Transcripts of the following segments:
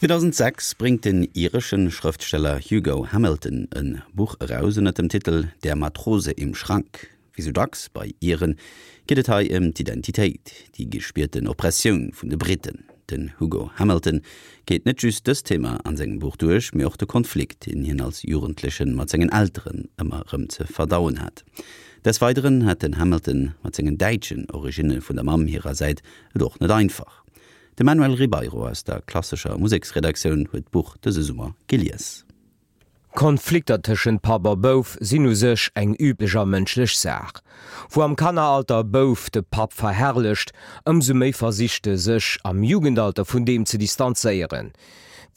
2006 bréngt den iresche Schrëftsteller Hugo Hamilton e Buch eraus ënner dem Titel Der Matrose im Schrank. Wéi sou dacks bei Iren geet et hei ëm d'Identitéit, déi gespierten Oppressioun vun de Briten. Den Hugo Hamilton geet net just dëst Thema an sengem Buch duerch, mee och de Konflikt, deen hien als Jugendlechen mat sengen Elteren ëmmer erëm ze verdauen hat. Des Weideren hat den Hamilton mat sengen däitschen Originne vun der Mamm hirer Säit et och net einfach. De Manuel Ribeiro aus der klassescher Museksredaktioun huet d'Buch dëse Summer gelies. Konflikter tëschent Papp a Bouf sinn u sech eng üblech a mënschlech Saach. Wou am Kanneralter e Bouf de Papp verherrlecht, ëmsou méi versicht e sech am Jugendalter vun deem ze distanzéieren.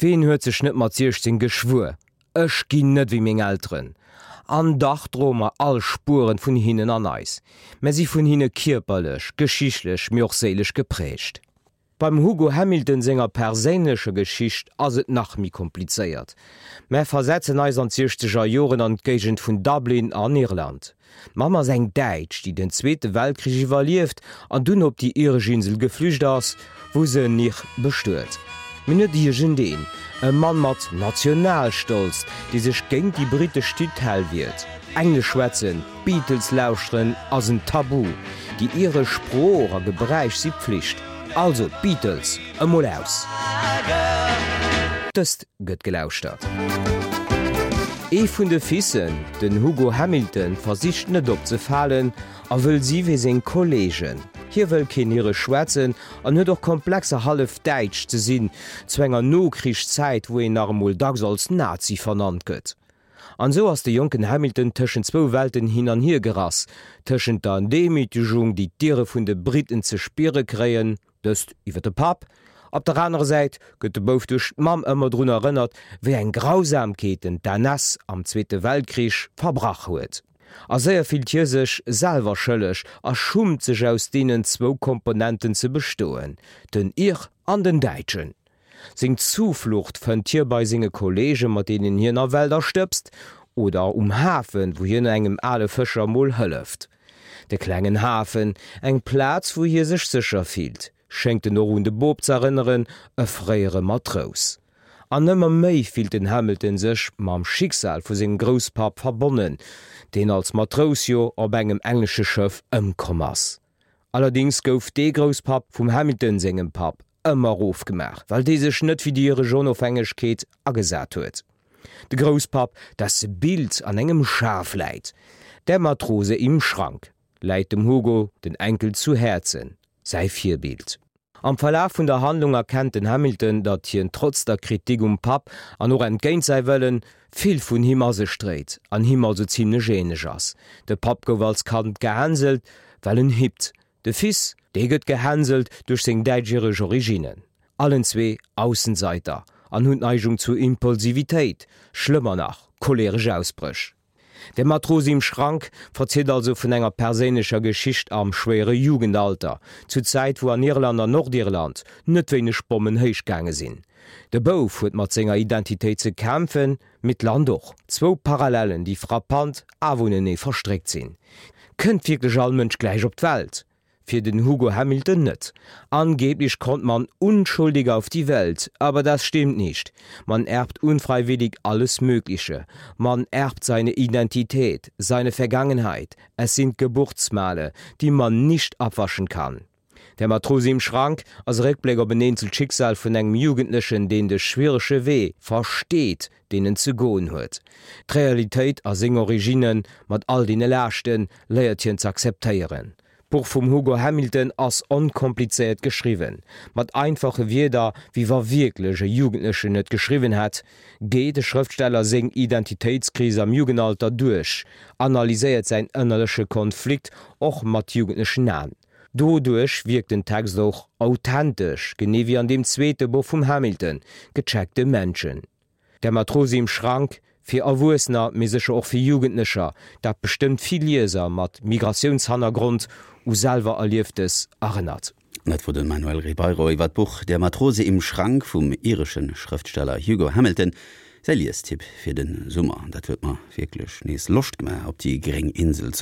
Ween huet sech net mat 16 geschwuer, Ech ginn net wéi meng Elteren? An dach droe mer all Spueren vun hinnen an eis. Mer si vun hinne kierperlech, geschichtlech, mee och séilesch geprägt. Beim Hugo Hamilton senger perséinlecher Geschicht ass et nach méi komplizéiert. Mer versetzen eis an d'siechzeger Joren an d'Géigend vun Dublin an Irland. D'Mamm ass eng Däitsch, déi den Zweete Weltkrich iwwerlieft an dunn op déi iresch Insel geflücht ass, wou se en Ir bestuet. Mee net iergendeen, e Mann mat Nationalstolz, dee sech géint déi britesch Tutelle wiert. Englesch schwätzen, d'Beatles lauschteren ass en Tabu, déi iresch Sprooch a Gebräich si Pflicht. Also d'Beatles emol aus! Dëst gëtt gelauschtert. Ee vun de Fissen, den Hugo Hamilton, versicht net opzefalen a wëll si wéi seng Kolleegen. Hie wëll keen Iresch schwätzen an huet och Komplexer hallef Däitsch ze sinn, zu enger Nokrichszäit wou een nach emol dacks als Nazi vernannt gëtt. An esou ass de jonken Hamilton tëschent zwou Welten hin an hier gerass, tëschent der Demütegung déi d'Ire vun de Briten ze spiere kréien, dëst iwwer de Papp, op der anerer Säit gëtt de Bouf duerch d'Mamm ëmmer drun erënnert, wéi eng Grausamkeeten d'NS am Zweete Weltkrich verbrach huet. A séier fillt hie sech selwer schëlleg a schummt sech aus deenen zwou Komponenten ze bestoen, den Ir an den Däitschen. Seng Zuflucht fënnt hie bei senge Kolleegen, mat deenen hien a Wälder stëbst, oder um Hafen, wou hien engem ale Fëscher mol hëlleft. De klengen Hafen, eng Plaz wou hie sech sécher fillt, schéngt en och un de Bob z'erënneren, e fréiere Matrous. An ëmmer méi fillt den Hamilton sech mam Schicksal vu sengem Grousspapp verbonnen, deen als Matrous jo op engem englesche Schëff ëmkomm ass. Allerdéngs gouf dee Grousspapp vum Hamilton sengem Papp ëmmer erofgemaach, well dee sech net fir déi iresch Onofhängegkeet agesat huet. De Grousspapp, desse Bild an engem Schaf läit, Der Matrose im Schrank, läit dem Hugo, den Enkel, zu Häerzen, säi Virbild. Am Verlaf vun der Handlung erkennt den Hamilton, datt hien trotz der Kritik um Papp an och entgéint säi Wëllen, vill vun him a sech dréit an him also zimlech änlech ass. De Papp gouf als Kand gehänselt, well en hippt. De Fils, dee gëtt gehänselt duerch seng däitsch-iresch Originnen. Allen zwee Aussenseiter an hunn d'Neigung zu Impulsivitéit, schlëmmer nach, choleresch Ausbréch. Der Matrose im Schrank verzielt also vun enger perséinlecher Geschicht am schwéiere Jugendalter, zu Zäit wou an Irland an Nordirland net wéineg Bommen héich gaange sinn. De Bouf huet mat senger Identitéit ze kämpfen, mee d'Land och. Zwou Parallellen, déi frappant awer unenee verstréckt sinn. Kënnt wierklech all Mënsch gläich op d'Welt? Fir den Hugo Hamilton net. Angeblich kommt man unschuldig auf die Welt, aber das stimmt nicht. Man erbt unfreiwillig alles Mögliche. Man erbt seine Identität, seine Vergangenheit. Es sind Geburtsmale, die man nicht abwaschen kann. Der Matrose im Schrank ass e Réckbléck op en eenzelt Schicksal vun engem Jugendlechen, deen de schwierege Wee versteet, deen en ze goen huet. D'Realitéit a seng Originne mat all deene Laaschten léiert hien z'akzeptéieren. D'Buch vum Hugo Hamilton ass onkomplizéiert geschriwwen, mat einfache Wierder, wéi wa wierklech e Jugendlechen et geschriwwen hätt, geet de Schrëftsteller seng Identitéitskris am Jugendalter duerch, analyséiert säin ënnerleche Konflikt och mat jugendlechen Aen. Doduerch wierkt den Text och authentesch, genee wéi an deem zweete Buch vum Hamilton, Gecheckte Menschen. Der Matrose im Schrank, fir Erwuessener, mee sécher och fir Jugendlecher, dat bestëmmt vill Lieser mat Migratiounshannergrond u selwer Erlieftes erënnert. Dat wor de Manuel Ribeiro iwwer d'Buch Der Matrose im Schrank vum iresche Schrëftsteller Hugo Hamilton. Säi Liestipp fir de Summer. Dat huet mer wierklech nees Loscht gemaach op déi gréng Insel.